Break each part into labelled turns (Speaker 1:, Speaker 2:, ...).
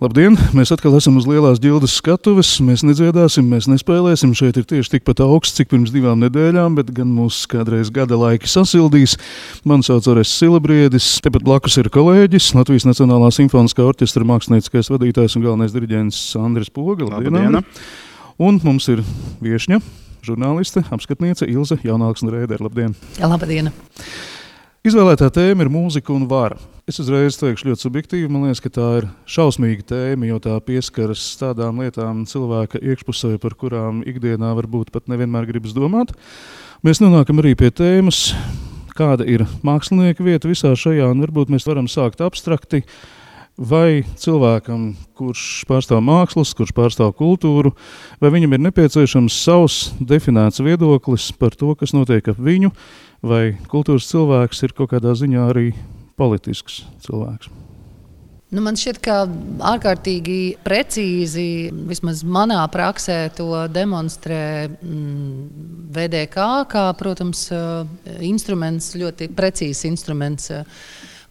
Speaker 1: Labdien! Mēs atkal esam uz Lielās ģildes skatuves. Mēs nedziedāsim, mēs nespēlēsim. Šeit ir tieši tikpat augsts, cik pirms 2 nedēļām, bet gan mūs kādreiz gada laiki sasildīs. Mani sauc Orests Silabriedis. Tepat blakus ir kolēģis, Latvijas Nacionālā simfoniskā orķestra mākslinieciskais vadītājs un galvenais diriģents Andris Poga.
Speaker 2: Labdien!
Speaker 1: Un mums ir viešņa, žurnāliste, apskatniece Ilze Jaunalksne-Rēdere. Labdien!
Speaker 3: Labdien!
Speaker 1: Izvēlētā tēma ir mūzika un vara. Es uzreiz teikšu ļoti subjektīvi, man liekas, ka tā ir šausmīga tēma, jo tā pieskaras tādām lietām cilvēka iekšpusē, par kurām ikdienā varbūt pat nevienmēr gribas domāt. Mēs nonākam arī pie tēmas, kāda ir mākslinieka vieta visā šajā, un varbūt mēs varam sākt abstrakti, vai cilvēkam, kurš pārstāv mākslas, kurš pārstāv kultūru, vai viņam ir nepieciešams savs definēts viedoklis par to, kas notiek ap viņu, vai kultūras cilvēks ir kaut kādā ziņā arī politisks cilvēks.
Speaker 3: Man šķiet, ka ārkārtīgi precīzi, vismaz manā praksē, to demonstrē VDK, kā, protams, instruments, ļoti precīzs instruments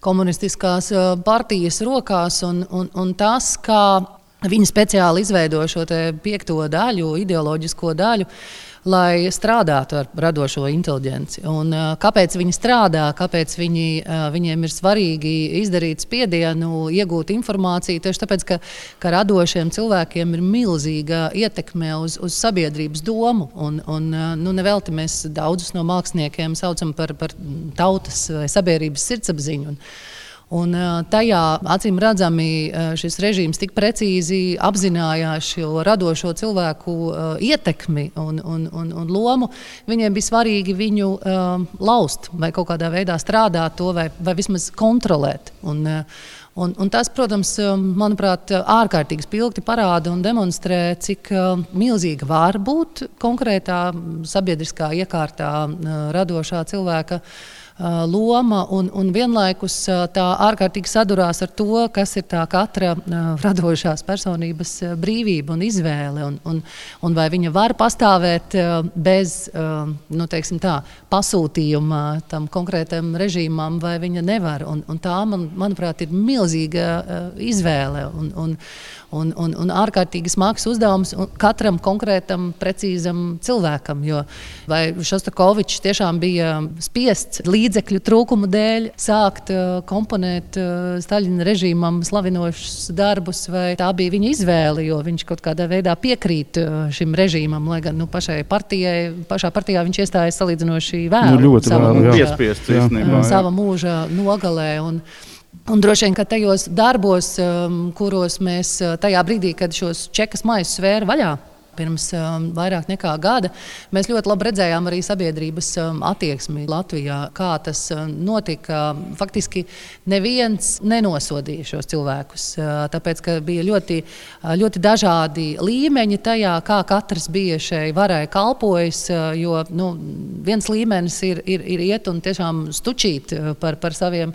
Speaker 3: komunistiskās partijas rokās, un tas, kā viņi speciāli izveido šo te 5. daļu, ideoloģisko daļu, lai strādātu ar radošo inteliģenci. Un kāpēc viņi strādā, kāpēc viņiem ir svarīgi izdarīt spiedienu, iegūt informāciju, tieši tāpēc, ka radošiem cilvēkiem ir milzīga ietekme uz sabiedrības domu. Un nevelti mēs daudzus no māksliniekiem saucam par tautas vai sabiedrības sirdsapziņu. Un tajā, acīm redzami, šis režīms tik precīzi apzinājās šo radošo cilvēku ietekmi un lomu. Viņiem bija svarīgi viņu laust vai kaut kādā veidā strādāt to vai vismaz kontrolēt. Un tas, protams, manuprāt, ārkārtīgi spilgti parāda un demonstrē, cik milzīga var būt konkrētā sabiedriskā iekārtā radošā cilvēka loma, un vienlaikus tā ārkārtīgi sadurās ar to, kas ir tā katra radošās personības brīvība un izvēle, un vai viņa var pastāvēt bez, teiksim tā, pasūtījuma tam konkrētam režīmam, vai viņa nevar. Un tā, manuprāt, ir milzīga izvēle un ārkārtīgi smags uzdevums katram konkrētam, precīzam cilvēkam, jo vai Šostakovičs tiešām bija spiests līdzekļu trūkumu dēļ sākt komponēt Staļina režīmam slavinošus darbus, vai tā bija viņa izvēle, jo viņš kaut kādā veidā piekrīt šim režīmam, lai gan pašā partijā viņš iestājas salīdzinoši vēlu. Sava mūža nogalē. Un droši vien, ka tajos darbos, kuros mēs tajā brīdī, kad šos čekas maisus svēra vaļā, pirms vairāk nekā gada, mēs ļoti labi redzējām arī sabiedrības attieksmi Latvijā, kā tas notika. Faktiski neviens nenosodīja šos cilvēkus, tāpēc, ka bija ļoti, ļoti dažādi līmeņi tajā, kā katrs bija šai varai kalpojis, jo viens līmenis ir iet un tiešām stučīt par saviem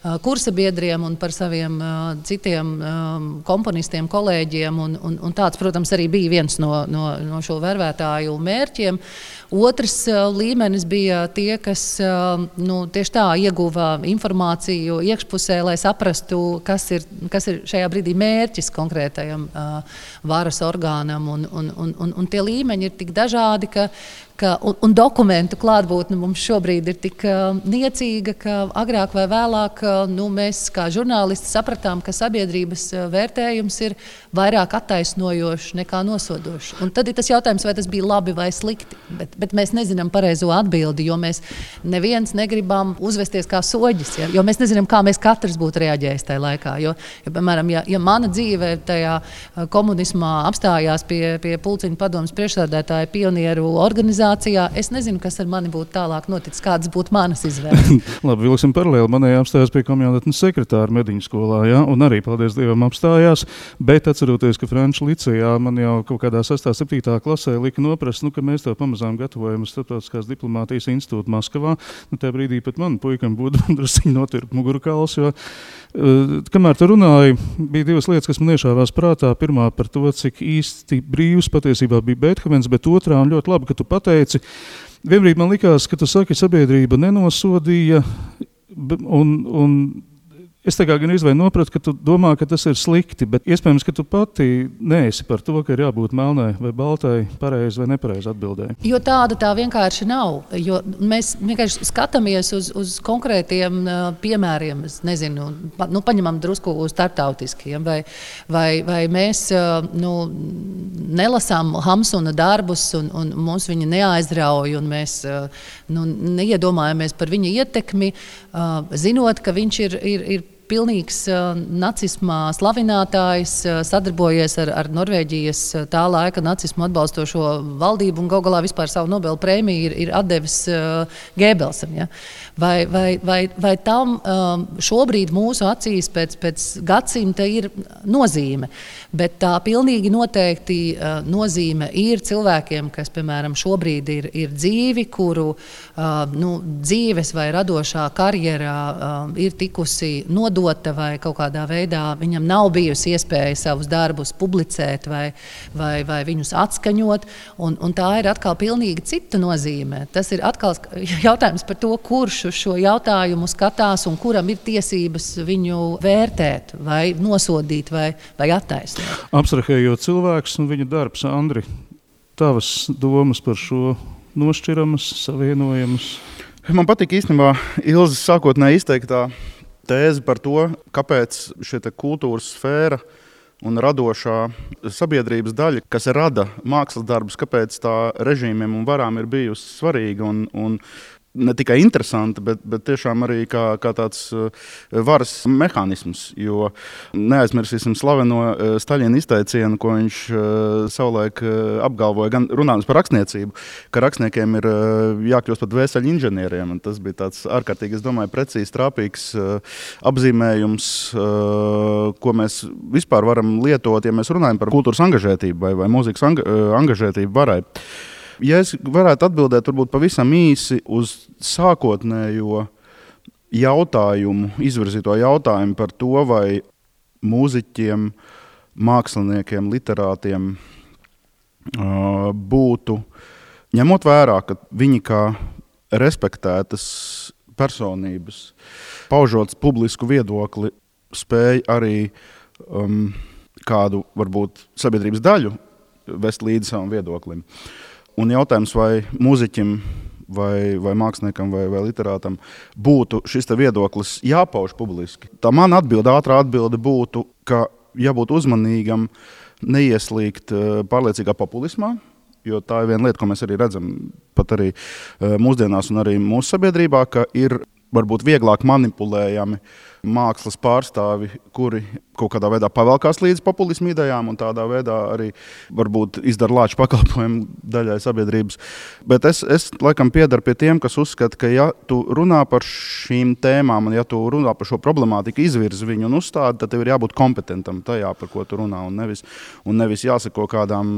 Speaker 3: kursabiedriem un par saviem citiem komponistiem, kolēģiem, un tāds, protams, arī bija viens no šo vervētāju mērķiem. Otrs līmenis bija tie, kas tieši tā ieguva informāciju iekšpusē, lai saprastu, kas ir šajā brīdī mērķis konkrētajam varas orgānam, un tie līmeņi ir tik dažādi, un dokumentu klātbūtne mums šobrīd ir tik niecīga, ka agrāk vai vēlāk mēs kā žurnālisti sapratām, ka sabiedrības vērtējums ir vairāk attaisnojošs nekā nosodošs. Un tad ir tas jautājums, vai tas bija labi vai slikti, bet mēs nezinām pareizo atbildi, jo mēs neviens negribam uzvesties kā soģis, jo mēs nezinām, kā mēs katrs būtu reaģējis tajā laikā. Jo piemēram, ja mana dzīve tajā komunismā apstājās pie Pulciņu padomes priekšsēdētāja pionieru organizācijā, es nezinu, kas ar mani būtu tālāk noticis, kādas būtu manas izvēles.
Speaker 1: Labi, vilksim paralēli. Manējā apstājās pie komjaudatnes sekretāra Mediņu skolā, ja? Un arī, paldies Dievam, apstājās, bet atceroties, ka Franču licejā man jau kaut kādā 6. 7. klasē lika noprast, ka mēs to pamazām gatavojam uz Starptautiskās diplomātijas institūtu Maskavā. Tajā brīdī pat man puikam būtu drusciņi notirp mugurkauls, jo kamēr tu runāji, bija 2 lietas, kas man iešāvās prātā. Pirmā par to, cik īsti brīvs patiesībā bija Beethovens, bet otrā, un ļoti labi, ka tu pateici, vienbrīd man likās, ka tu saki, sabiedrība nenosodīja, un Es tā kā gan izvēju nopratu, ka tu domā, ka tas ir slikti, bet iespējams, ka tu pati neesi par to, ka ir jābūt melnai vai baltai, pareizi vai nepareizi atbildēji.
Speaker 3: Jo tāda tā vienkārši nav. Jo mēs vienkārši skatāmies uz konkrētiem piemēriem. Es nezinu, paņemam drusku starptautiskiem, vai mēs nelasām Hamsuna darbus un mums viņi neaizrauj, un mēs neiedomājamies par viņa ietekmi, zinot, ka viņš ir pilnīgs nacismā slavinātājs, sadarbojies ar Norvēģijas tā laika nacismu atbalstošo valdību un galu galā vispār savu Nobela prēmiju ir atdevis Gēbelsam. Ja? Vai tam šobrīd mūsu acīs pēc gadsimta ir nozīme, bet tā pilnīgi noteikti nozīme ir cilvēkiem, kas, piemēram, šobrīd ir dzīvi, kuru dzīves vai radošā karjerā ir tikusi nodota vai kaut kādā veidā viņam nav bijusi iespēja savus darbus publicēt vai viņus atskaņot, un tā ir atkal pilnīgi cita nozīme. Tas ir atkal jautājums par to, kurš uz šo jautājumu skatās un kuram ir tiesības viņu vērtēt vai nosodīt vai attaisnot.
Speaker 1: Abstrahējot cilvēkus un viņa darbs, Andri, tavas domas par šo nošķiramas, savienojamas?
Speaker 2: Man patīk īstenībā Ilzes sākotnēji izteiktā tēze par to, kāpēc šī kultūras sfēra un radošā sabiedrības daļa, kas rada mākslas darbus, kāpēc tā režīmiem un varām ir bijusi svarīga un ne tikai interesanti, bet tiešām arī kā tāds varas mehānisms. Jo neaizmirsīsim slaveno Staļina izteicienu, ko viņš savulaik apgalvoja, gan runājot par rakstniecību, ka rakstniekiem ir jākļūst par dvēseļu inženieriem. Un tas bija tāds ārkārtīgi, es domāju, precīzi trāpīgs apzīmējums, ko mēs vispār varam lietot, ja mēs runājam par kultūras angažētību vai mūzikas angažētību varai. Ja es varētu atbildēt varbūt pavisam īsi uz sākotnējo jautājumu, izvirzīto jautājumu par to, vai mūziķiem, māksliniekiem, literātiem būtu, ņemot vērā, ka viņi kā respektētas personības, paužot publisku viedokli, spēj arī kādu, varbūt, sabiedrības daļu vest līdzi savam viedoklim. Un jautājums, vai mūziķim, vai māksliniekam, vai literātam būtu šis viedoklis jāpauž publiski. Tā man ātrā atbilde būtu, ka jābūt uzmanīgam, neieslīgt pārliecīgā populismā, jo tā ir viena lieta, ko mēs arī redzam pat arī mūsdienās un arī mūsu sabiedrībā, ka ir varbūt vieglāk manipulējami mākslas pārstāvi, kuri kaut kādā veidā pavelkās līdz populismu idejām un tādā veidā arī varbūt izdara lāču pakalpojumu daļai sabiedrības. Bet es laikam piedaru pie tiem, kas uzskata, ka ja tu runā par šīm tēmām un ja tu runā par šo problemātiku, izvirzi viņu un uzstādi, tad tev ir jābūt kompetentam tajā, par ko tu runā, un nevis jāsako kādām,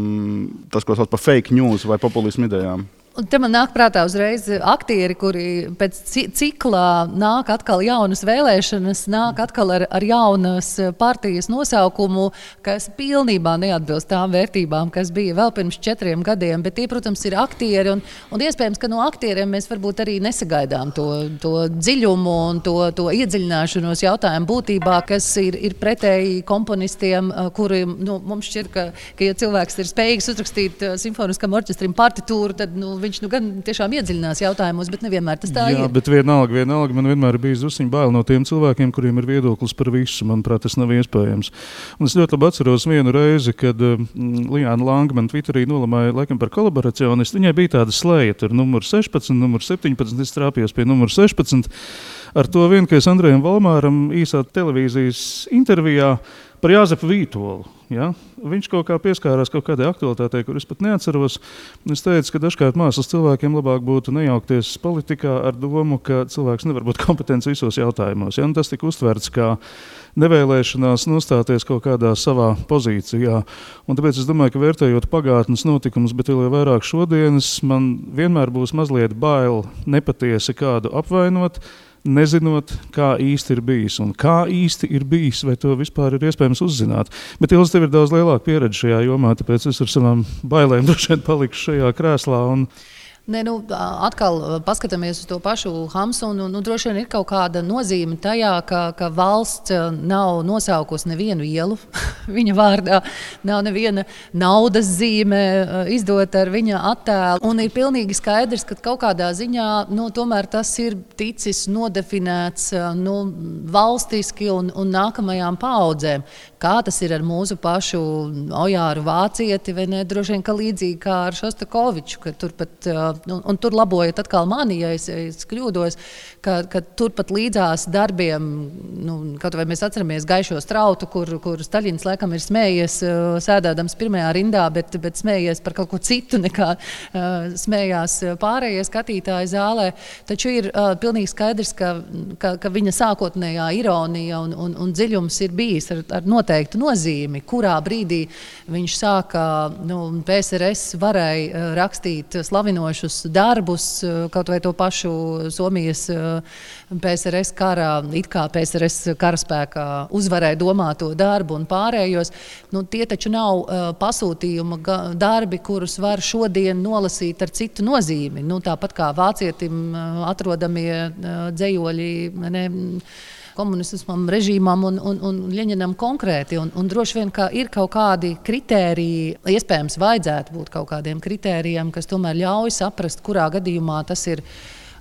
Speaker 2: tas, ko sauc par fake news vai populismu idejām.
Speaker 3: Un te man nāk prātā uzreiz aktieri, kuri pēc ciklā nāk atkal jaunas vēlēšanas, nāk atkal ar jaunas partijas nosaukumu, kas pilnībā neatbilst tām vērtībām, kas bija vēl pirms 4 gadiem. Bet tie, protams, ir aktieri, un iespējams, ka no aktieriem mēs varbūt arī nesagaidām to dziļumu un to iedziļināšanos jautājumu būtībā, kas ir pretēji komponistiem, kuri mums šķiet, ka ja cilvēks ir spējīgs uzrakstīt simfoniskam orķestrim partitūru, tad viņš gan tiešām iedziļinās jautājumos, bet nevienmēr tas tā ir.
Speaker 1: Jā, bet vienalga man vienmēr bija zusiņ bail no tiem cilvēkiem, kuriem ir viedoklis par visu. Manuprāt, tas nav iespējams. Un es ļoti labi atceros vienu reizi, kad Lijāna Lange man Twitterī nolamāja laikam par kolaboracionistu. Viņai bija tāda slēja, tur numur 16, numur 17, es trāpījos pie numur 16. Ar to vien, ka es Andrejam Valmāram īsā televīzijas intervijā par Jāzepu Vītolu. Ja? Viņš kaut kā pieskārās kaut kādai aktualitātei, kur es pat neatceros. Es teicu, ka dažkārt mākslas cilvēkiem labāk būtu nejaukties politikā ar domu, ka cilvēks nevar būt kompetents visos jautājumos. Ja? Un tas tika uztverts kā nevēlēšanās nostāties kaut kādā savā pozīcijā. Un tāpēc es domāju, ka vērtējot pagātnes notikumus, bet vēl vairāk šodienas, man vienmēr būs mazliet bail nepatiesi kādu apvainot, nezinot, kā īsti ir bijis un kā īsti ir bijis, vai to vispār ir iespējams uzzināt. Bet Ilze, tev ir daudz lielāka pieredze šajā jomā, tāpēc es ar savām bailēm droši vien palikšu šajā krēslā.
Speaker 3: Nē, atkal paskatāmies uz to pašu Hamsu, un droši vien ir kaut kāda nozīme tajā, ka valsts nav nosaukusi nevienu ielu viņa vārdā, nav neviena naudas zīme izdota ar viņa attēlu. Un ir pilnīgi skaidrs, ka kaut kādā ziņā tomēr tas ir ticis nodefinēts valstiski un nākamajām paaudzēm. Kā tas ir ar mūsu pašu Ojāru Vācieti, vai ne? Droši vien, ka līdzīgi kā ar Šostakoviču, ka turpat, un tur labojiet atkal mani, ja es kļūdos, ka turpat līdzās darbiem, kaut vai mēs atceramies Gaišo strautu, kur Staļins laikam ir smējies, sēdēdams pirmajā rindā, bet smējies par kaut ko citu, nekā smējās pārējie skatītāji zālē. Taču ir pilnīgi skaidrs, ka viņa sākotnējā ironija un dziļums ir bijis ar noteiktu nozīmi, kurā brīdī viņš sāka, PSRS varēja rakstīt slavinošus darbus, kaut vai to pašu Somijas PSRS karā, it kā PSRS karaspēkā uzvarēja domāto darbu un pārējos. Tie taču nav pasūtījuma darbi, kurus var šodien nolasīt ar citu nozīmi. Tāpat kā vācietim atrodamie dzejoļi, komunismam, režīmam un Ļeņinam konkrēti. Un droši vien, ka ir kaut kādi kritēriji, iespējams vajadzētu būt kaut kādiem kritērijiem, kas tomēr ļauj saprast, kurā gadījumā tas ir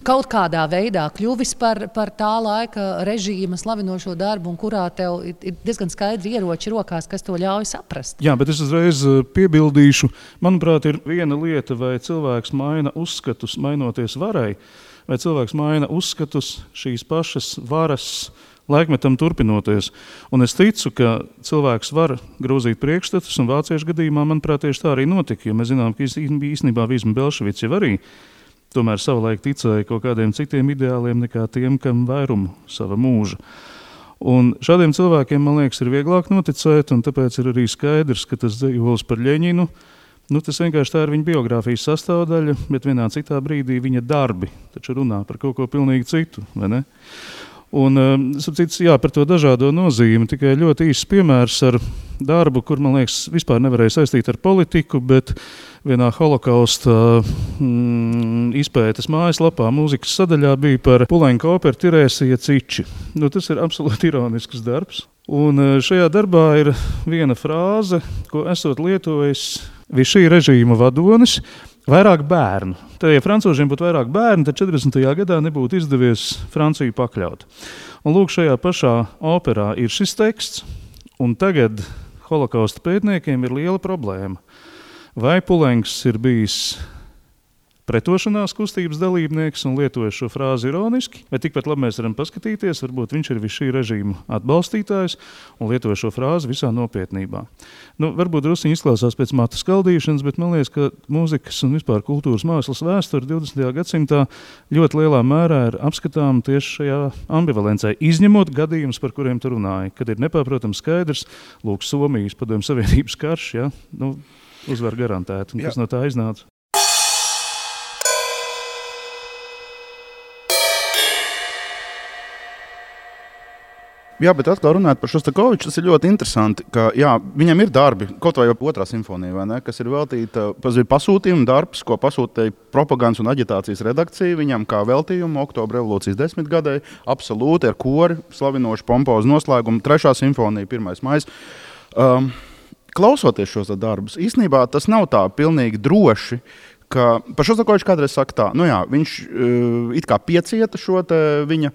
Speaker 3: kaut kādā veidā kļuvis par tā laika režīma slavinošo darbu, un kurā tev ir diezgan skaidri ieroči rokās, kas to ļauj saprast.
Speaker 1: Jā, bet es uzreiz piebildīšu. Manuprāt, ir viena lieta, vai cilvēks maina uzskatus, mainoties varai, vai cilvēks maina uzskatus šīs pašas varas laikmetam turpinoties. Un es ticu, ka cilvēks var grozīt priekšstatus, un vāciešu gadījumā, manuprāt, tieši tā arī notika, jo mēs zinām, ka īstenībā Vīsma Belševics jau arī tomēr savulaik ticēja kaut kādiem citiem ideāliem nekā tiem, kam vairumu sava mūža. Un šādiem cilvēkiem, man liekas, ir vieglāk noticēt, un tāpēc ir arī skaidrs, ka tas dzejolis par Ļeņinu, tas vienkārši tā ir viņa biogrāfijas sastāvdaļa, bet vienā citā brīdī viņa darbi taču runā par kaut ko pilnīgi citu, vai ne? Un, par to dažādo nozīmi, tikai ļoti īsts piemērs ar darbu, kur, man liekas, vispār nevarēja saistīt ar politiku, bet vienā holokausta izpētes mājaslapā mūzikas sadaļā bija par Puleņka operu Tirēsija Ciči. Tas ir absolūti ironisks darbs. Un šajā darbā ir viena frāze, ko esot lietojis Vichy režīma vadonis, vairāk bērnu. Tad, ja francūžiem būtu vairāk bērnu, tad 40. gadā nebūtu izdevies Franciju pakļaut. Un lūk, šajā pašā operā ir šis teksts, un tagad holokausta pētniekiem ir liela problēma. Vai Pulenks ir bijis pretošanās kustības dalībnieks un lietojas šo frāzi ironiski, vai tikpat labi mēs varam paskatīties, varbūt viņš ir šī režīma atbalstītājs un lietoja šo frāzi visā nopietnībā. Varbūt drusciņi izklausās pēc matu skaldīšanas, bet man liekas, ka mūzikas un vispār kultūras mākslas vēsture 20. gadsimtā ļoti lielā mērā ir apskatām tieši šajā ambivalencē, izņemot gadījumus, par kuriem tu runāji, kad ir nepārprotams skaidrs, lūk, Somijas padomju Savienības karš, uzvar garantēti, un kas no tā iznāca.
Speaker 2: Jā, bet atkal runājot par Šostakoviču, tas ir ļoti interesanti, ka viņam ir darbi, kaut vai otrā simfonija, vai ne, kas ir veltīta pasūtījuma darbs, ko pasūtīja propagandas un aģitācijas redakcija viņam kā veltījumu Oktobra revolūcijas 10. gadai, absolūti ar kori, slavinošu pompozu noslēgumu, 3. simfonija, 1. maijs. Klausoties šos darbus, īstenībā tas nav tā pilnīgi droši, ka par Šostakoviču kādreiz saka tā, viņš it kā piecieta šo viņa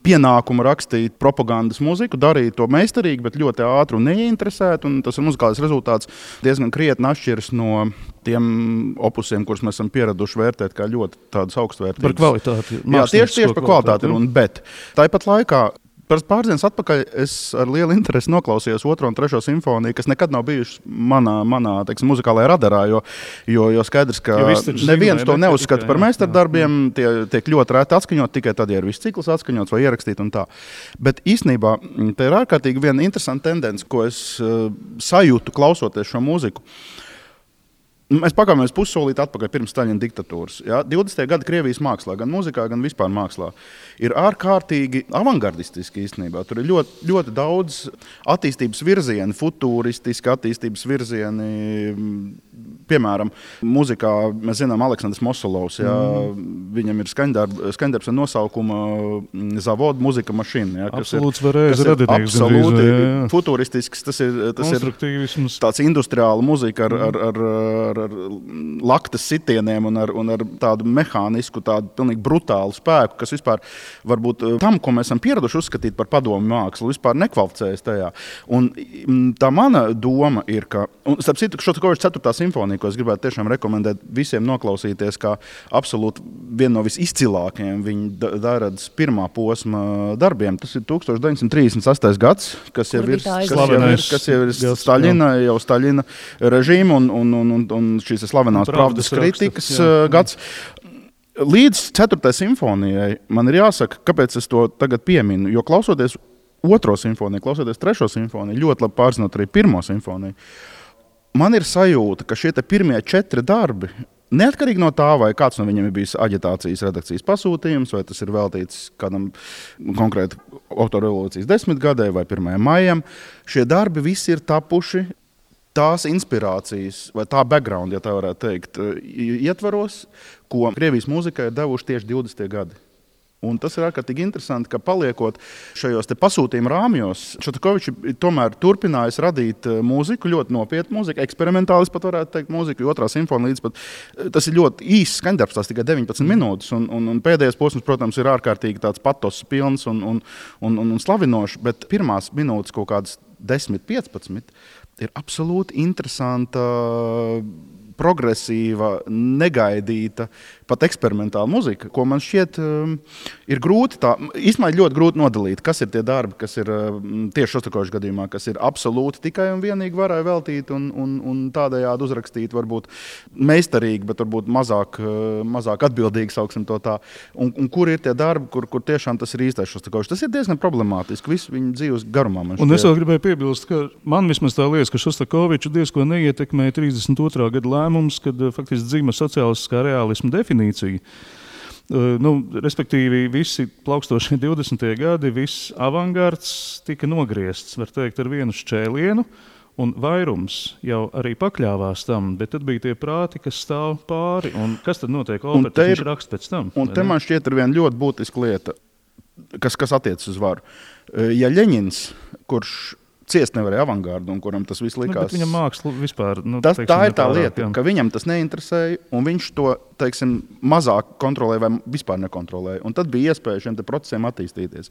Speaker 2: pienākumu rakstīt propagandas muziku, darīt to meistarīgi, bet ļoti ātri un neieinteresēt, un tas muzikālais rezultāts diezgan krietni atšķiras no tiem opusiem, kurus mēs esam pieraduši vērtēt kā ļoti tādus augstvērtīgus.
Speaker 1: Par kvalitāti.
Speaker 2: Jā, tieši par kvalitāti, bet tāpat laikā pāris dienas atpakaļ es ar lielu interesi noklausījos 2. un 3. simfoniju, kas nekad nav bijušas manā muzikālajā radarā, jo skaidrs, ka neviens to neuzskata par meistardarbiem, tie tiek ļoti rēti atskaņot, tikai tad, ja ir viss cikls atskaņots vai ierakstīt un tā. Bet īstenībā te ir ārkārtīgi viena interesanta tendence, ko es sajūtu klausoties šo mūziku. Mēs pakāpjamies pussolīti atpakaļ pirms Staļina diktatūras. 20. gadi Krievijas mākslā, gan mūzikā, gan vispār mākslā, ir ārkārtīgi avangardistiski īstenībā. Tur ir ļoti, ļoti daudz attīstības virzieni, futūristiski attīstības virzieni, Piemēram, mūzikā mēs zinām Aleksandrs Mosolovs, viņam ir skaņdarbs ar nosaukumu Zavod muzika mašīna. Ja,
Speaker 1: absolūts varēs radinieks.
Speaker 2: Absolūti futuristisks, tas ir tāds industriāla muzika ar laktas sitieniem un ar tādu mehānisku, tādu pilnīgi brutālu spēku, kas vispār varbūt tam, ko mēs esam pieraduši uzskatīt par padomu mākslu, vispār nekvalificējas tajā. Un tā mana doma ir, ka, un starp citu, Šostakoviča 4. simfonija, ko es gribētu tiešām rekomendēt visiem noklausīties, kā absolūti viena no visizcilākajiem viņa Dairadas pirmā posma darbiem. Tas ir 1938. gads, kas jau ir Staļina režīma un šīs slavenās pravdas kritikas gads. Līdz 4. simfonijai man ir jāsaka, kāpēc es to tagad pieminu, jo klausoties 2. simfoniju, klausoties 3. simfoniju, ļoti labi pārzinot arī 1. simfoniju, man ir sajūta, ka šie pirmie 4 darbi, neatkarīgi no tā, vai kāds no viņiem ir bijis aģitācijas redakcijas pasūtījums, vai tas ir veltīts kādam konkrēti autoru revolūcijas 10 gadai vai 1. maijam, šie darbi visi ir tapuši tās inspirācijas, vai tā background, ja tā varētu teikt, ietvaros, ko Krievijas mūzikai ir devuši tieši 20. gadi. Un tas ir ārkārtīgi interesanti, ka paliekot šajos pasūtījuma rāmjos, Šostakovičs tomēr turpinājis radīt mūziku, ļoti nopietnu mūziku, eksperimentālis pat varētu teikt mūziku, jo 2. simfonija līdz pat, tas ir ļoti īsts skaņdarbs, tās tikai 19 minūtes, un pēdējais posms, protams, ir ārkārtīgi tāds patos pilns un slavinošs, bet pirmās minūtes kaut kādas 10-15 ir absolūti interesanta, progresīva, negaidīta, pat eksperimentāla muzika, ko man šķiet ir grūti īstenībā ļoti grūti nodalīt, kas ir tie darbi, kas ir tieši Šostakoviča gadījumā, kas ir absolūti tikai un vienīgi varai veltīti un tādējādi uzrakstīt, varbūt meistarīgi, bet varbūt mazāk atbildīgi, sauksim to tā. Un kur ir tie darbi, kur tiešām tas ir īstais Šostakovičs. Tas ir diezgan problemātiski visu viņa dzīves garumā.
Speaker 1: Un es vēl gribēju piebilst, ka man vismaz tā liekas, ka Šostakoviču diezko neietekmēja 32. gada lēmums, kad faktiski dzīva sociālistiskā reālisma definīcija. Respektīvi, visi plaukstošie 20. gadi, viss avangards tika nogriezts, var teikt, ar vienu šķēlienu, un vairums jau arī pakļāvās tam, bet tad bija tie prāti, kas stāv pāri, un kas tad notiek operā, viņš raksta pēc tam?
Speaker 2: Un te man šķiet ir viena ļoti būtiska lieta, kas attiecas uz varu. Ja Ļeņins, kurš ciest nevarēja avangardu, un kuram tas viss likās.
Speaker 1: Bet viņam māksla vispār.
Speaker 2: Tā ir tā lieta, ka viņam tas neinteresēja, un viņš to, teiksim, mazāk kontrolēja vai vispār nekontrolēja. Un tad bija iespēja šiem procesiem attīstīties.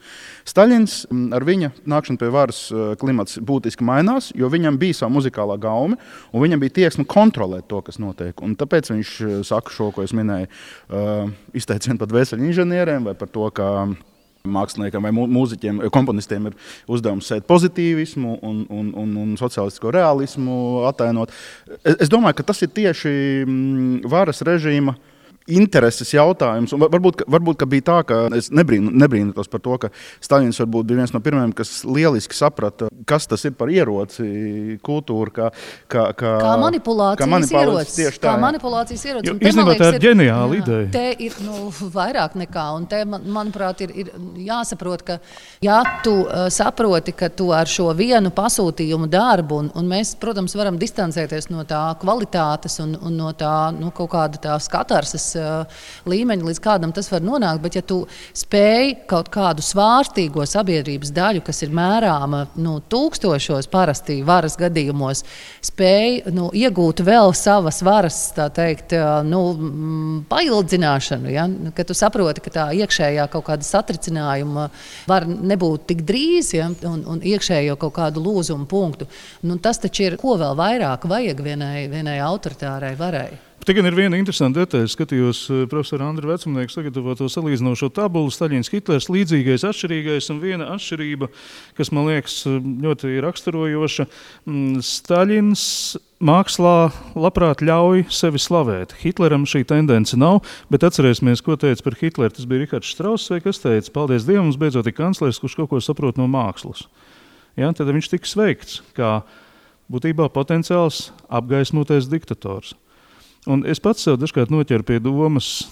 Speaker 2: Staļins ar viņa nākšanu pie varas klimats būtiski mainās, jo viņam bija savu muzikālā gaume, un viņam bija tieksme kontrolēt to, kas notiek. Un tāpēc viņš saka šo, ko es minēju, izteicienu pat vēseļu inženieriem vai par to, ka māksliniekam vai mūziķiem, komponistiem ir uzdevums sēt pozitīvismu un sociālistisko realismu atainot. Es domāju, ka tas ir tieši varas režīma intereses jautājums. Un varbūt ka bija tā, ka es nebrīnos par to, ka Staļins varbūt bija viens no pirmajiem, kas lieliski saprata, kas tas ir par ieroci kultūra, kā
Speaker 3: manipulācijas ieroci. Kā manipulācijas ieroci.
Speaker 1: Īstenībā tā ir ģeniāla ideja.
Speaker 3: Te ir vairāk nekā, un te, manuprāt, ir jāsaprot, ka ja tu saproti, ka tu ar šo vienu pasūtījumu darbu, un mēs, protams, varam distancēties no tā kvalitātes un no tā kaut kāda tā skatarses līmeņa, līdz kādam tas var nonākt, bet ja tu spēj kaut kādu svārstīgo sabiedrības daļu, kas ir mērāma tūkstošos parasti varas gadījumos, spēj iegūt vēl savas varas, tā teikt, paildzināšanu, ja? Ka tu saproti, ka tā iekšējā kaut kāda satricinājuma var nebūt tik drīz, ja? un iekšējo kaut kādu lūzumu punktu. Tas taču ir, ko vēl vairāk vajag vienai autoritārai varai.
Speaker 1: Te gan ir viena interesanta detaļa. Skatījos profesora Andra Vecumnieka sagatavoto salīdzinošo tabulu Staļins, Hitlers, līdzīgais, atšķirīgais, un viena atšķirība, kas man liekas ļoti raksturojoša. Staļins mākslā labprāt ļauj sevi slavēt. Hitleram šī tendence nav, bet atcerēsimies, ko teica par Hitleru. Tas bija Rihards Štrauss, vai kas teica, paldies Dievam, mums beidzot ir kanclers, kurš kaut ko saprot no mākslas. Ja, tad viņš tika sveikts kā būtībā potenciāls apgaismotais diktators. Un es pats sev dažkārt noķeru pie domas,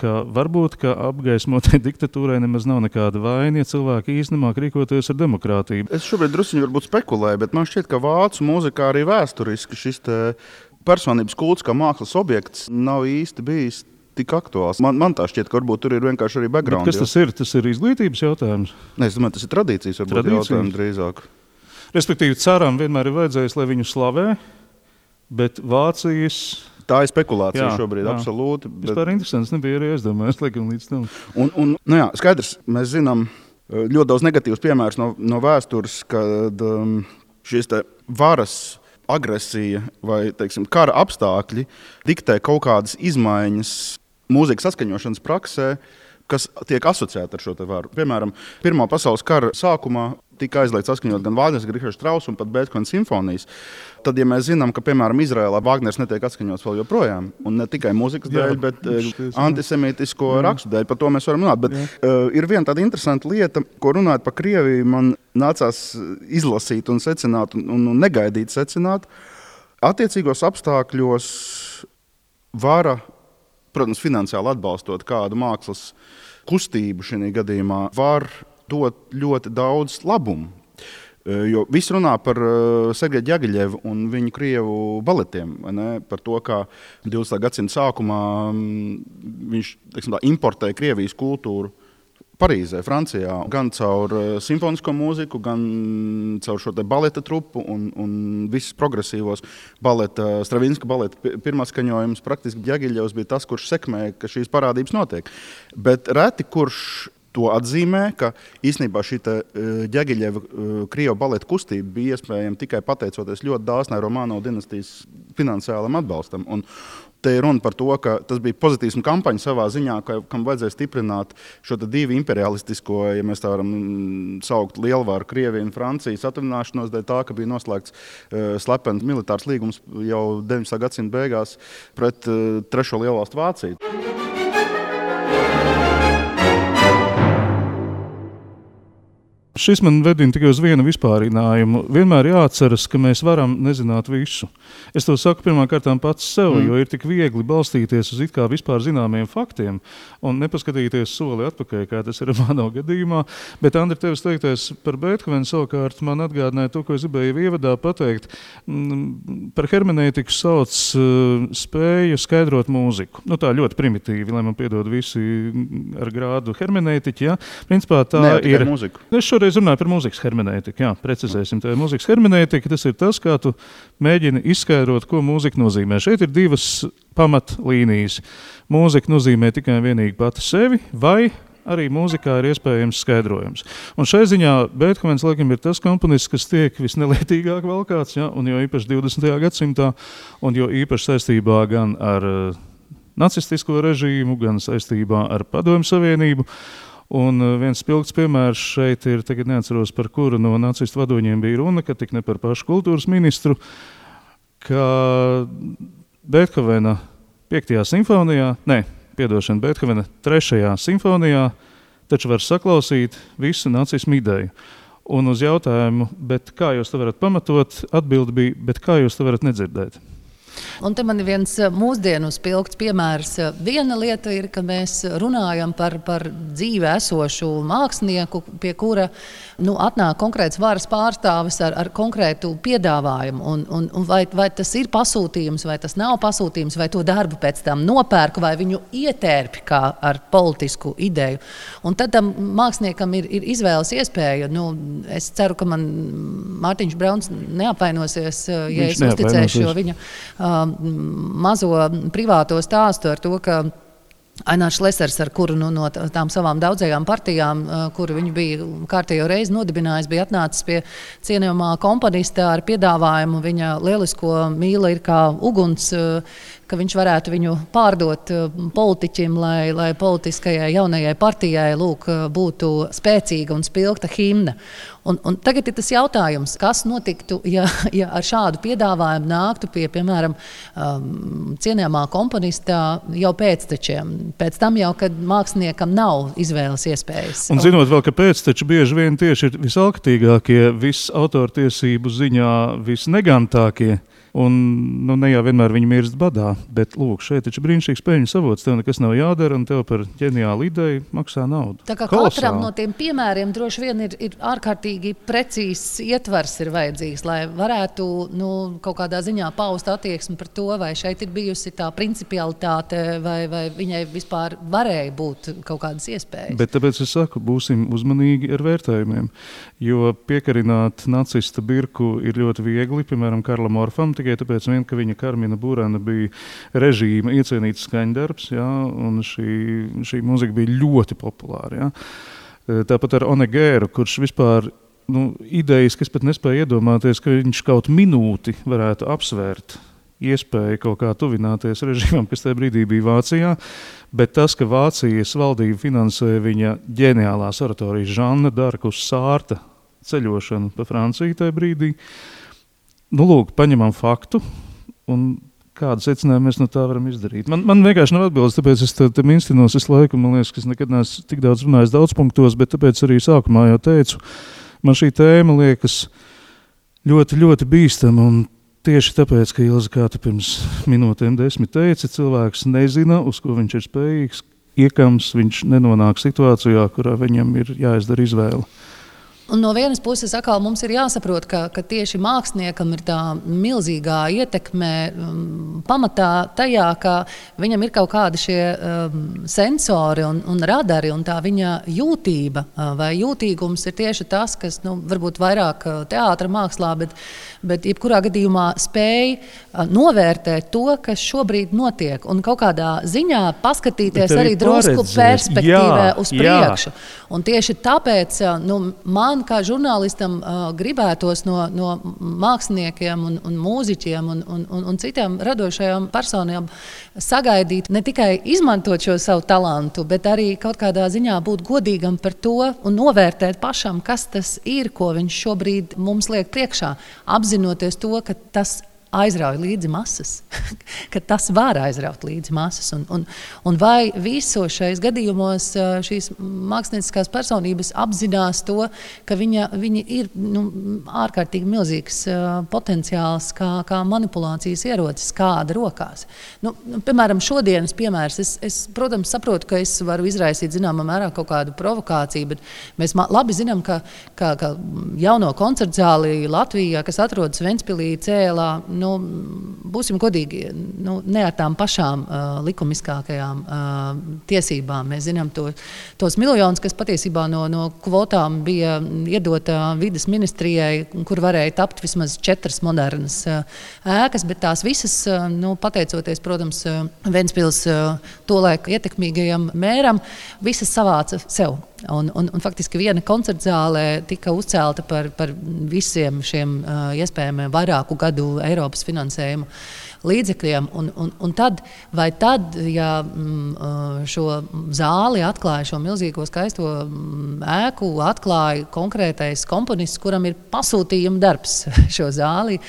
Speaker 1: ka varbūt apgaismotai diktatūrai nemaz nav nekāda vaina, ja cilvēki īsti nemāk rīkoties ar demokrātiju.
Speaker 2: Es šobrīd drusciņi varbūt spekulēju, bet man šķiet, ka vācu mūzikā arī vēsturiski šis personības kults kā mākslas objekts nav īsti bijis tik aktuāls. Man tā šķiet, ka varbūt tur ir vienkārši arī background.
Speaker 1: Bet kas tas ir? Tas ir izglītības jautājums?
Speaker 2: Ne, es domāju, tas ir tradīcijas, varbūt jautājums drīzāk.
Speaker 1: Respektīvi, caram vienmēr ir vajadzējis, lai viņu slavē, bet Vācijas...
Speaker 2: Tā ir spekulācija šobrīd, absolūti.
Speaker 1: Vispār interesants nebija arī aizdomājis, laikam līdz tam.
Speaker 2: Un skaidrs, mēs zinām ļoti daudz negatīvus piemērus no vēstures, kad šīs te varas agresija vai, teiksim, kara apstākļi diktē kaut kādas izmaiņas mūzikas saskaņošanas praksē, kas tiek asociēta ar šo te varu. Piemēram, Pirmā pasaules kara sākumā tika aizliegts saskaņot gan Vāgners, gan Richards Strauss un pat Beethovena simfonijas. Tad, ja mēs zinām, ka, piemēram, Izrēlā Vāgners netiek atskaņots vēl joprojām, un ne tikai mūzikas dēļ, bet antisemītisko rakstu dēļ, par to mēs varam runāt. Bet ir viena tāda interesanta lieta, ko runājot par Krieviju, man nācās izlasīt un secināt un negaidīt secināt. Attiecīgos apstākļos vara, protams, finansiāli atbalstot kādu mākslas kustību šajā gadījumā, var dot ļoti daudz labumu. Jo viss runā par Sergeju Ďagiļevu un viņu krievu baletiem, par to, kā 20. gadsimta sākumā viņš, teiksim, importēja Krievijas kultūru Parīzē, Francijā, gan caur simfonisko mūziku, gan caur šo te baleta trupu un visus progresīvos baleta, Stravinska baleta pirmā skaņojums, praktiski Ďagiļevs bija tas, kurš sekmēja, ka šīs parādības notiek. Bet reti, kurš to atzīmē, ka īstenībā šī Ďagiļeva krievu baleta kustība bija iespējama tikai pateicoties ļoti dāsnai Romanovas dinastijas finansiālam atbalstam. Un te ir runa par to, ka tas bija pozitīvs kampaņa savā ziņā, kam vajadzēja stiprināt šo divu imperialistisko, ja mēs tā varam saukt, lielvaru Krieviju un Francijas atvināšanos dēļ tā, ka bija noslēgts slepens militārs līgums jau 19. gadsimta beigās pret trešo lielvalstu Vāciju.
Speaker 1: Šis man vedina tikai uz vienu vispārinājumu. Vienmēr jāatceras, ka mēs varam nezināt visu. Es to saku pirmkārtām pats sev, jo ir tik viegli balstīties uz it kā vispār zināmiem faktiem un nepaskatīties soli atpakaļ, kā tas ir manā gadījumā. Bet, Andri, tevis teiktais par Beethovenu savukārt man atgādināja to, ko es gribēju ievadā pateikt. Par hermenētiku sauc spēju skaidrot mūziku. Tā ļoti primitīvi, lai man piedod visi ar grādu hermenētiķi. Ja? Principā tā ir
Speaker 2: mūziku.
Speaker 1: Šoreiz runāju par mūzikas hermenētiku. Jā, precizēsim. Tā ir mūzikas hermenētika. Tas ir tas, kā tu mēģini izskaidrot, ko mūzika nozīmē. Šeit ir divas pamatlīnijas. Mūzika nozīmē tikai vienīgi pati sevi, vai arī mūzikā ir iespējams skaidrojums. Un šai ziņā Beethovens, laikam, ir tas komponists, kas tiek visnelietīgāk valkāts, ja? Un jo īpaši 20. gadsimtā, un jo īpaši saistībā gan ar nacistisko režīmu, gan saistībā ar Padomju Savienību. Un viens spilgts piemērs šeit ir, tagad neatceros, par kuru no nacistu vadoņiem bija runa, ka tik ne par pašu kultūras ministru, ka Beethovena 5. simfonijā, Beethovena 3. simfonijā taču var saklausīt visu nacismu ideju. Un uz jautājumu, bet kā jūs to varat pamatot, atbilde bija, bet kā jūs to varat nedzirdēt?
Speaker 3: Un te man ir viens mūsdienu spilgts piemērs. Viena lieta ir, ka mēs runājam par dzīvē esošu mākslinieku, pie kura atnāk konkrēts varas pārstāvis ar konkrētu piedāvājumu. Un vai tas ir pasūtījums, vai tas nav pasūtījums, vai to darbu pēc tam nopērku, vai viņu ietērpi kā ar politisku ideju. Un tad tam māksliniekam ir izvēles iespēja. Es ceru, ka man Mārtiņš Brauns neapvainosies, ja es uzticēšu šo viņa mazo privāto stāstu ar to, ka Ainārs Šlesers, ar kuru no tām savām daudzajām partijām, kuru viņš bija kārtējo reizi nodibinājis, bija atnācis pie cienījamā komponista ar piedāvājumu. Viņa lielisko mīla ir kā uguns, ka viņš varētu viņu pārdot politiķim, lai politiskajai jaunajai partijai būtu spēcīga un spilgta himna. Un tagad ir tas jautājums, kas notiktu, ja ar šādu piedāvājumu nāktu pie, piemēram, cienījamā komponista jau pēctečiem. Pēc tam jau, kad māksliniekam nav izvēles iespējas.
Speaker 1: Un zinot vēl, ka pēcteči bieži vien tieši ir visalkatīgākie, autortiesību ziņā visnegantākie, Un ne jau vienmēr viņi mirst badā, bet lūk, šeit taču brīnišķīgs peļņas avots, tev nekas nav jādara un tev par ģeniālu ideju maksā naudu.
Speaker 3: Tā kā katram no tiem piemēriem droši vien ir ārkārtīgi precīzs ietvars ir vajadzīgs, lai varētu kaut kādā ziņā paust attieksmi par to, vai šeit ir bijusi tā principialitāte, vai viņai vispār varēja būt kaut kādas iespējas.
Speaker 1: Bet tāpēc es saku, būsim uzmanīgi ar vērtējumiem, jo piekarināt nacista birku ir ļoti viegli, piemēram, Karlam Orfam, tikai tāpēc, ka viņa Karmina Burana bija režīma iecienīts skaņdarbs, ja, un šī mūzika bija ļoti populāra. Ja. Tāpat ar Onegēru, kurš vispār idejas, kas pat nespēja iedomāties, ka viņš kaut minūti varētu apsvērt iespēju kaut kā tuvināties režīmam, kas tajā brīdī bija Vācijā, bet tas, ka Vācijas valdība finansē viņa ģeniālās oratorijas Žanna Darkus Sārta ceļošanu pa Franciju tajā brīdī, lūk, paņemam faktu, un kādu secinājumu mēs no tā varam izdarīt. Man vienkārši nav atbildes, tāpēc es tam instinos visu laiku, man liekas, ka es nekad neesmu tik daudz runājis daudz punktos, bet tāpēc arī sākumā jau teicu, man šī tēma liekas ļoti, ļoti bīstama, un tieši tāpēc, ka Ilze, kā tu pirms minūtēm 10 teici, cilvēks nezina, uz ko viņš ir spējīgs, iekams viņš nenonāk situācijā, kurā viņam ir jāizdara izvēle.
Speaker 3: Un no vienas puses atkal mums ir jāsaprot, ka tieši māksliniekam ir tā milzīgā ietekme pamatā tajā, ka viņam ir kaut kādi šie sensori un radari, un tā viņa jūtība vai jūtīgums ir tieši tas, kas varbūt vairāk teātra mākslā, bet jebkurā gadījumā spēj novērtēt to, kas šobrīd notiek, un kaut kādā ziņā paskatīties arī drusku perspektīvē uz priekšu. Un tieši tāpēc man kā žurnālistam gribētos no māksliniekiem un mūziķiem un citām radošajām personām sagaidīt ne tikai izmantot šo savu talantu, bet arī kaut kādā ziņā būt godīgam par to un novērtēt pašam, kas tas ir, ko viņš šobrīd mums liek priekšā, apzinoties to, ka tas aizrauj līdzi masas, ka tas var aizraut līdzi masas. Un vai visos šajos gadījumos šīs mākslinieckās personības apzinās to, ka viņi ir ārkārtīgi milzīgs potenciāls kā manipulācijas ierocis, kāda rokās. Piemēram, šodienas piemērs, es, protams, saprotu, ka es varu izraisīt zināmā mērā kaut kādu provokāciju, bet mēs labi zinām, ka jauno koncertu zāli Latvijā, kas atrodas Ventspilī, Cēlā, būsim godīgi, ne ar tām pašām likumiskākajām tiesībām. Mēs zinām tos miljonus, kas patiesībā no kvotām bija iedota vides ministrijai, kur varēja tapt vismaz 4 modernas ēkas, bet tās visas, pateicoties, protams, Ventspils tolaik ietekmīgajam mēram, visas savāca sev. Un faktiski viena koncertzālē tika uzcelta par visiem šiem iespējamiem vairāku gadu Eiropas finansējumu līdzekļiem. Un tad, ja šo zāli atklāja, šo milzīgo skaisto ēku, atklāja konkrētais komponists, kuram ir pasūtījuma darbs šo zāli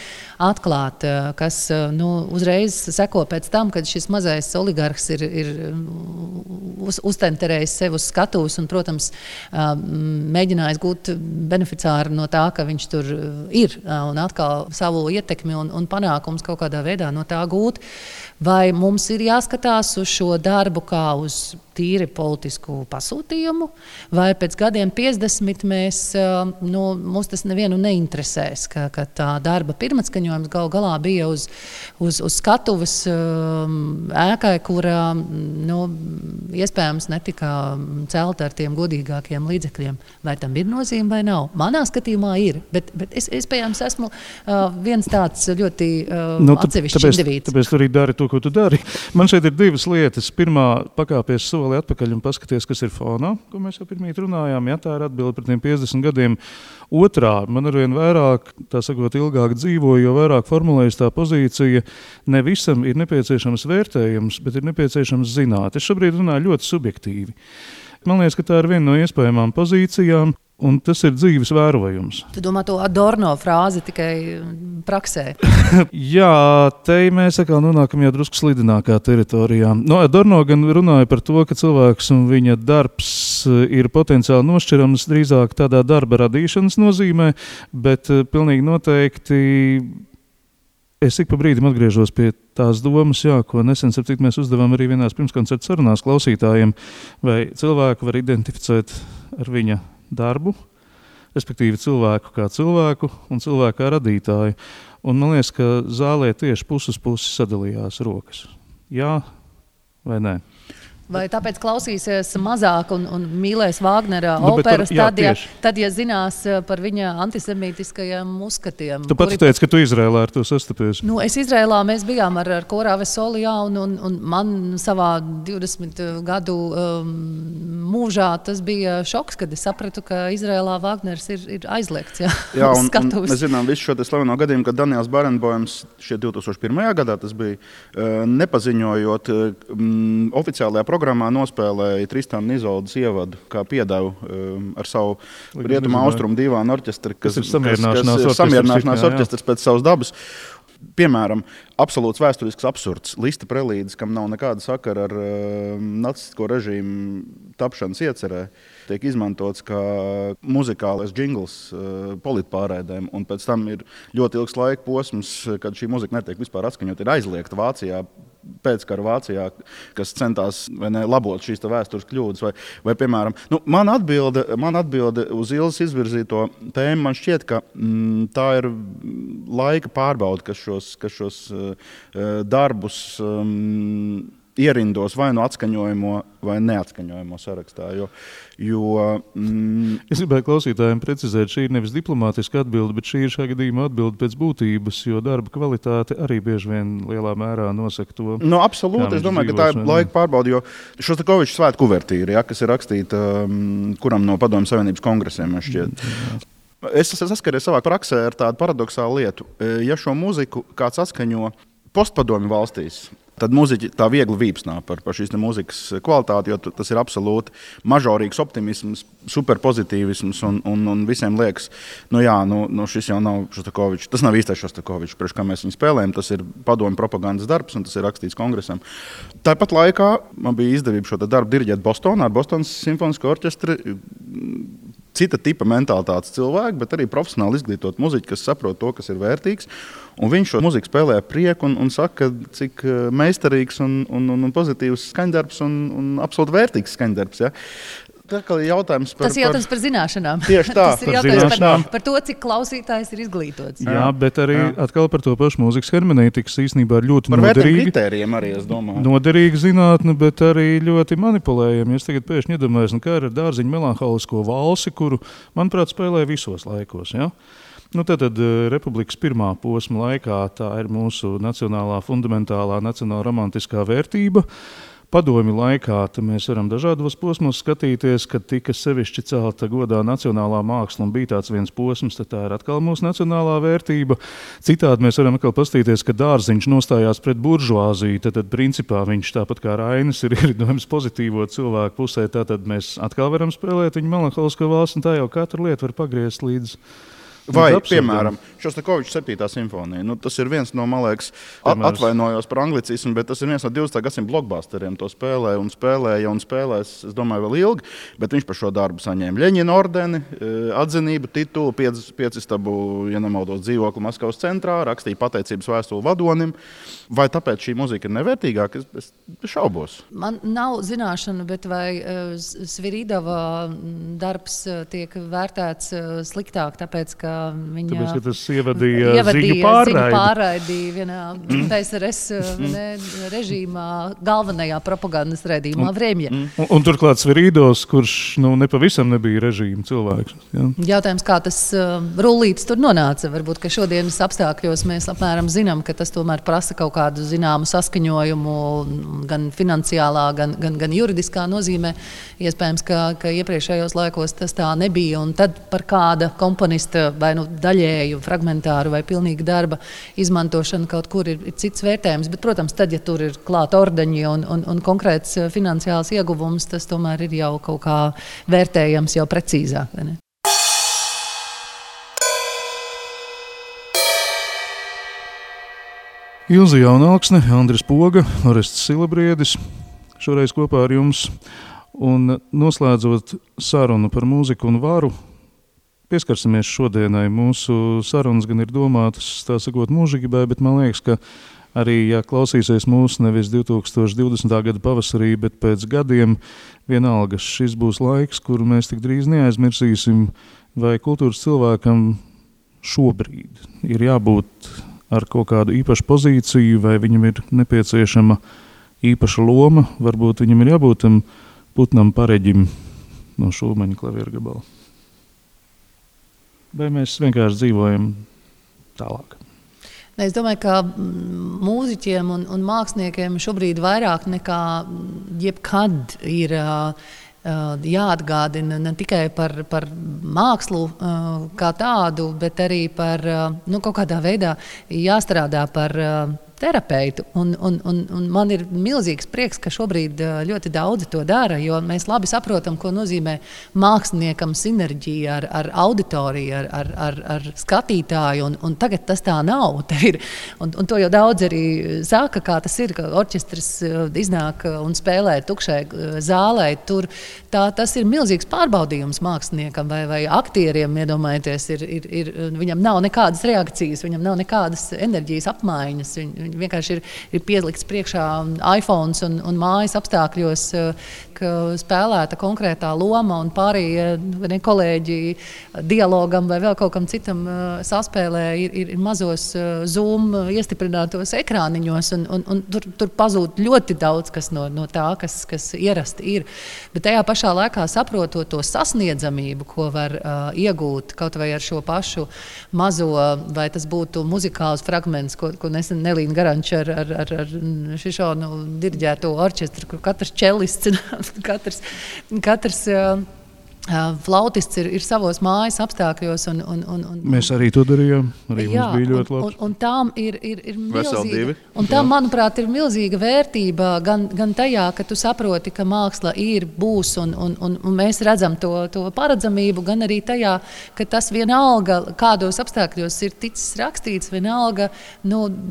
Speaker 3: atklāt, kas uzreiz seko pēc tam, kad šis mazais oligarhs ir uztenterējis sev uz skatuves un, protams, mēģinājis gūt beneficāru no tā, ka viņš tur ir un atkal savu ietekmi un panākums kaut kādā veidā no tā gūt. Vai mums ir jāskatās uz šo darbu kā uz tīri politisku pasūtījumu, vai pēc gadiem 50 mums tas nevienu neinteresēs, ka tā darba pirmatskaņojums gal galā bija uz skatuves ēkai, kurā iespējams netika celta ar tiem godīgākiem līdzekļiem. Vai tam ir nozīme vai nav? Manā skatījumā ir, bet es iespējams esmu viens tāds ļoti atsevišķs indivīds.
Speaker 1: Tāpēc tu arī dari to, ko tu dari. Man šeit ir 2 lietas. Pirmā, pakāpies soli atpakaļ un paskaties, kas ir fonā, ko mēs jau pirmīt runājām. Ja, tā ir atbilde par tiem 50 gadiem. Otrā, man arvien vairāk, tā sakot, ilgāk dzīvoju, jo vairāk formulējas tā pozīcija. Ne visam ir nepieciešams vērtējums, bet ir nepieciešams zināt. Es šobrīd runāju ļoti subjektīvi. Man liekas, ka tā ir viena no iespējamām pozīcijām. Un tas ir dzīves vērojums.
Speaker 3: Tu domā to Adorno frāzi tikai praksē?
Speaker 1: Jā, te mēs atkal nonākam jau drusku slidinākā teritorijā. Adorno gan runāja par to, ka cilvēks un viņa darbs ir potenciāli nošķirams drīzāk tādā darba radīšanas nozīmē, bet pilnīgi noteikti Es ik pa brīdim atgriežos pie tās domas, ko nesen mēs uzdevām arī vienās pirmskoncerta sarunās klausītājiem, vai cilvēku var identificēt ar viņa darbu, respektīvi cilvēku kā cilvēku un cilvēku kā radītāju. Un man liekas, ka zālē tieši puses sadalījās rokas. Jā vai nē?
Speaker 3: Vai tāpēc klausīsies mazāk un mīlēs Vāgnera operas, tad, ja zinās par viņa antisemītiskajiem uzskatiem.
Speaker 1: Tu pats teici, ka tu Izrēlā ar to sastapies.
Speaker 3: Es Izrēlā, mēs bijām ar Korā Vesolijā, un man savā 20 gadu mūžā tas bija šoks, kad es sapratu, ka Izrēlā Vāgners ir aizliegts.
Speaker 2: Jā, un mēs zinām visu šo slaveno gadījumu, kad Daniels Barenboims šie 2001. gadā tas bija, nepaziņojot oficiālajā programmā nospēlēja Tristana Izoldas ievadu kā piedevu ar savu rietumu austrumu divānu orķestri, kas ir samierināšanās orķestris pēc savas dabas. Piemēram, absolūts vēsturisks absurds. Lista prelīdes, kam nav nekāda sakara ar nacistisko režīmu tapšanas iecerē, tiek izmantots kā muzikālais džingls politpārēdēm, un pēc tam ir ļoti ilgs laika posms, kad šī muzika netiek vispār atskaņot, ir aizliegta Vācijā, pēckara Vācijā, kas centās labot šīs vēstures kļūdas. Vai piemēram, man atbilde uz Ilzas izvirzīto tēmu, man šķiet, ka tā ir laika pārbauda, kas šos darbus ierindos vai atskaņojamo vai neatskaņojamo sarakstā.
Speaker 1: Es gribēju klausītājiem precizēt, šī ir nevis diplomātiska atbilde, bet šī ir šā gadījumā atbilde pēc būtības, jo darba kvalitāte arī bieži vien lielā mērā nosaka to.
Speaker 2: Absolūti, es domāju, ka tā ir laika pārbaude, jo Šostakoviča svētku kuvertīra, kas ir rakstīta kuram no Padomju Savienības kongresiem, man šķiet. Es saskaries savā praksē ar tādu paradoxālu lietu. Ja šo mūziku kāds atskaņo postpadomju valstīs, tad muziķi tā viegli vīpsnā par šīs mūzikas kvalitāti, jo tas ir absolūti mažorīgs optimisms, superpozitīvisms un visiem liekas, šis jau nav Šostakovičs, tas nav īstais Šostakovičs, priekš kā mēs viņu spēlējam, tas ir padomju propagandas darbs un tas ir rakstīts kongresam. Tāpat laikā man bija izdevība šo darbu diriģēt Bostonā ar Bostonas simfonisko orķestri, cita tipa mentalitātes cilvēki, bet arī profesionāli izglītot muziķi, kas saprot to, kas ir vērtīgs. Un viņš šo muziku spēlē ar prieku un saka, cik meistarīgs un pozitīvs skaņdarbs un absolūti vērtīgs skaņdarbs. Ja? Tas
Speaker 3: ir jautājums par zināšanām.
Speaker 2: Tieši tā.
Speaker 3: Tas ir jautājums par to, cik klausītājs ir izglītots.
Speaker 1: Jā, bet arī atkal par to pašu mūzikas hermenētikas īstenībā ir ļoti
Speaker 2: noderīga. Par vērtiem kritērijiem arī, es domāju.
Speaker 1: Noderīga zinātne, bet arī ļoti manipulējama. Es tagad pēkšņi iedomājos, kā ar Dārziņu melanholisko valsi, kuru, manuprāt, spēlē visos laikos. Ja? Tad Republikas pirmā posma laikā tā ir mūsu nacionālā fundamentālā, nacionāla romantiskā vērtība. Padomju laikā mēs varam dažādos posmos skatīties, kad tika sevišķi celta godā nacionālā māksla un bija tāds viens posms, tad tā ir atkal mūsu nacionālā vērtība. Citādi mēs varam atkal paskatīties, ka Dārziņš nostājās pret buržuāziju, tad principā viņš tāpat kā Rainis ir ieridojums pozitīvo cilvēku pusē, tad mēs atkal varam spēlēt viņu melanholisko valsti un tā jau katru lietu var pagriezt līdz.
Speaker 2: Vai, piemēram, Šostakoviča 7. simfonija. Tas ir viens no, man liekas, atvainojos par anglicismu, bet tas ir viens no 20. gadsimta blockbusteriem. To spēlēja un spēlēs, es domāju, vēl ilgi, bet viņš par šo darbu saņēma Ļeņina ordeni, atzinību, titulu, 5 stabu, ja nemaldos, dzīvokli Maskavas centrā, rakstīja pateicības vēstuli vadonim. Vai tāpēc šī muzika ir nevērtīgāka? Es šaubos.
Speaker 3: Man nav zināšana, bet vai Sviridova darbs tiek vērtēts sliktāk, tāpēc, ka viņa
Speaker 1: tas ievadīja ziņu pārraidi
Speaker 3: vienā PSRS režīmā, galvenajā propagandas raidījumā Vremja.
Speaker 1: Un turklāt Sviridovs, kurš nepavisam nebija režīma cilvēks. Ja?
Speaker 3: Jautājums, kā tas rullītis tur nonāca. Varbūt, ka šodienas apstākļos mēs apmēram zinām, ka tas tomēr prasa kaut kādu zināmu saskaņojumu gan finansiālā, gan juridiskā nozīmē. Iespējams, ka iepriekšējos laikos tas tā nebija. Un tad par kāda komponista vai daļēju, fragmentāru vai pilnīgu darba izmantošanu kaut kur ir cits vērtējums. Bet, protams, tad, ja tur ir klāt ordeņi un konkrēts finansiāls ieguvums, tas tomēr ir jau kaut kā vērtējams jau precīzāk. Vai ne?
Speaker 1: Ilze Jaunalksne, Andris Poga, Orests Silabriedis, šoreiz kopā ar jums. Un noslēdzot sarunu par mūziku un varu, pieskarsimies šodienai. Mūsu sarunas gan ir domātas, tā sakot, mūžībai, bet man liekas, ka arī, ja klausīsies mūsu nevis 2020. Gada pavasarī, bet pēc gadiem, vienalga šis būs laiks, kuru mēs tik drīz neaizmirsīsim, vai kultūras cilvēkam šobrīd ir jābūt ar kaut kādu īpašu pozīciju, vai viņam ir nepieciešama īpaša loma, varbūt viņam ir jābūt tam putnam pareģim no Šulmaņa klavieru gabala. Vai mēs vienkārši dzīvojam tālāk?
Speaker 3: Es domāju, ka mūziķiem un māksliniekiem šobrīd vairāk nekā jebkad ir jāatgādina ne tikai par mākslu kā tādu, bet arī par kaut kādā veidā jāstrādā par terapeitu. Un man ir milzīgs prieks, ka šobrīd ļoti daudzi to dara, jo mēs labi saprotam, ko nozīmē māksliniekam sinerģija ar auditoriju, ar skatītāju, un tagad tas tā nav. Un to jau daudz arī saka, kā tas ir, ka orķestris iznāk un spēlē tukšai zālē. Tas ir milzīgs pārbaudījums māksliniekam vai aktieriem, iedomājieties, viņam nav nekādas reakcijas, viņam nav nekādas enerģijas apmaiņas. Vienkārši ir pielikts priekšā iPhone un mājas apstākļos, ka spēlēta konkrētā loma un pārējie kolēģi dialogam vai vēl kaut kam citam saspēlē ir mazos Zoom iestiprinātos ekrāniņos un tur pazūd ļoti daudz kas no tā, kas ierasti ir. Bet tajā pašā laikā saprotot to sasniedzamību, ko var iegūt kaut vai ar šo pašu mazo, vai tas būtu muzikāls fragments, ko nesen Nelīna Garanča ar Šišonu diriģēto orķestru, kur katrs čelists, katrs flautists ir savos mājas apstākļos.
Speaker 1: Mēs arī to darījām. Arī jā, mums bija ļoti labs.
Speaker 3: Un tām ir milzīga. Un tām, manuprāt, ir milzīga vērtība gan tajā, ka tu saproti, ka māksla būs un mēs redzam to paredzamību, gan arī tajā, ka tas vienalga, kādos apstākļos ir ticis rakstīts, vienalga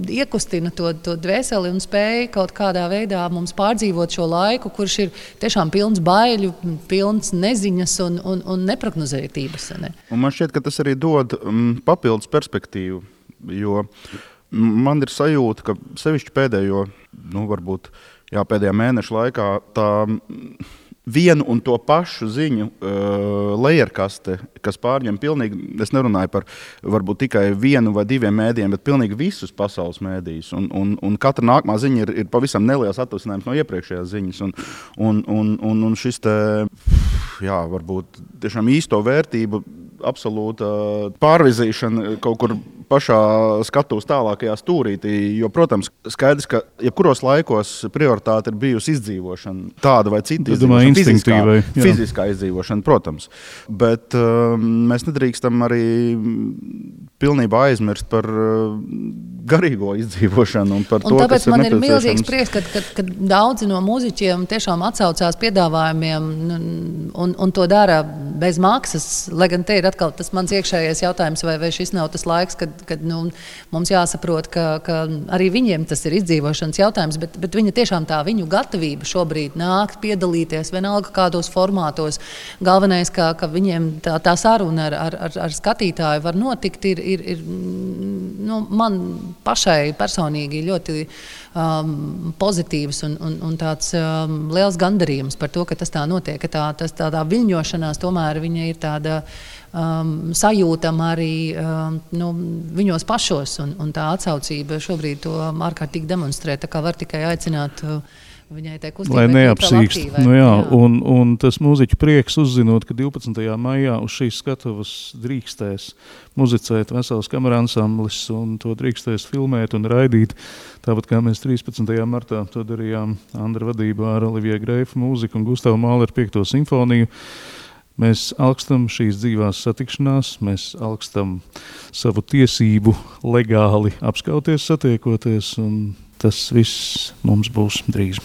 Speaker 3: iekustina to dvēseli un spēja kaut kādā veidā mums pārdzīvot šo laiku, kurš ir tiešām pilns baiļu, pilns neziņas un neprognozētības. Ne?
Speaker 2: Un man šķiet, ka tas arī dod papildus perspektīvu, jo man ir sajūta, ka sevišķi pēdējo, pēdējā mēneša laikā tā vienu un to pašu ziņu lejerkaste, kas pārņem pilnīgi, es nerunāju par varbūt tikai vienu vai diviem mēdījiem, bet pilnīgi visus pasaules mēdījus. Un katra nākamā ziņa ir pavisam neliels atvasinājums no iepriekšējās ziņas. Un šis te, varbūt tiešām īsto vērtību absolūta pārvizīšana kaut kur pašā skatuves tālākajā stūrītī, jo, protams, skaidrs, ka jebkuros laikos prioritāte ir bijusi izdzīvošana, tāda vai cita izdzīvošana, fiziskā izdzīvošana, protams. Bet mēs nedrīkstam arī pilnībā aizmirst par garīgo izdzīvošanu un par to,
Speaker 3: tāpēc
Speaker 2: kas ir
Speaker 3: man ir
Speaker 2: nepieciešams.
Speaker 3: Milzīgs prieks, ka daudzi no mūziķiem tiešām atsaucās piedāvājumiem un to dara bez maksas, lai gan te ir atkal tas mans iekšējais jautājums, vai šis nav tas laiks, kad mums jāsaprot, ka arī viņiem tas ir izdzīvošanas jautājums, bet viņa tiešām tā viņu gatavība šobrīd nākt, piedalīties, vienalga kādos formātos. Galvenais, ka viņiem tā saruna ar skatītāju var notikt, ir man pašai personīgi ļoti pozitīvs un tāds liels gandarījums par to, ka tas tā notiek, ka tādā viļņošanās tomēr viņa ir tāda sajūtama arī viņos pašos, un tā atsaucība šobrīd to ārkārtīgi demonstrē, tā kā var tikai aicināt viņai tai kustībai.
Speaker 1: Lai neapsīkst. Un tas mūziķu prieks uzzinot, ka 12. maijā uz šīs skatuves drīkstēs muzicēt vesels kameransamblis un to drīkstēs filmēt un raidīt. Tāpat kā mēs 13. martā to darījām Andra vadībā ar Olivie Greifa mūziku un Gustavu Māleru 5. simfoniju. Mēs alkstam šīs dzīvās satikšanās, mēs alkstam savu tiesību legāli apskauties, satiekoties, un tas viss mums būs drīz.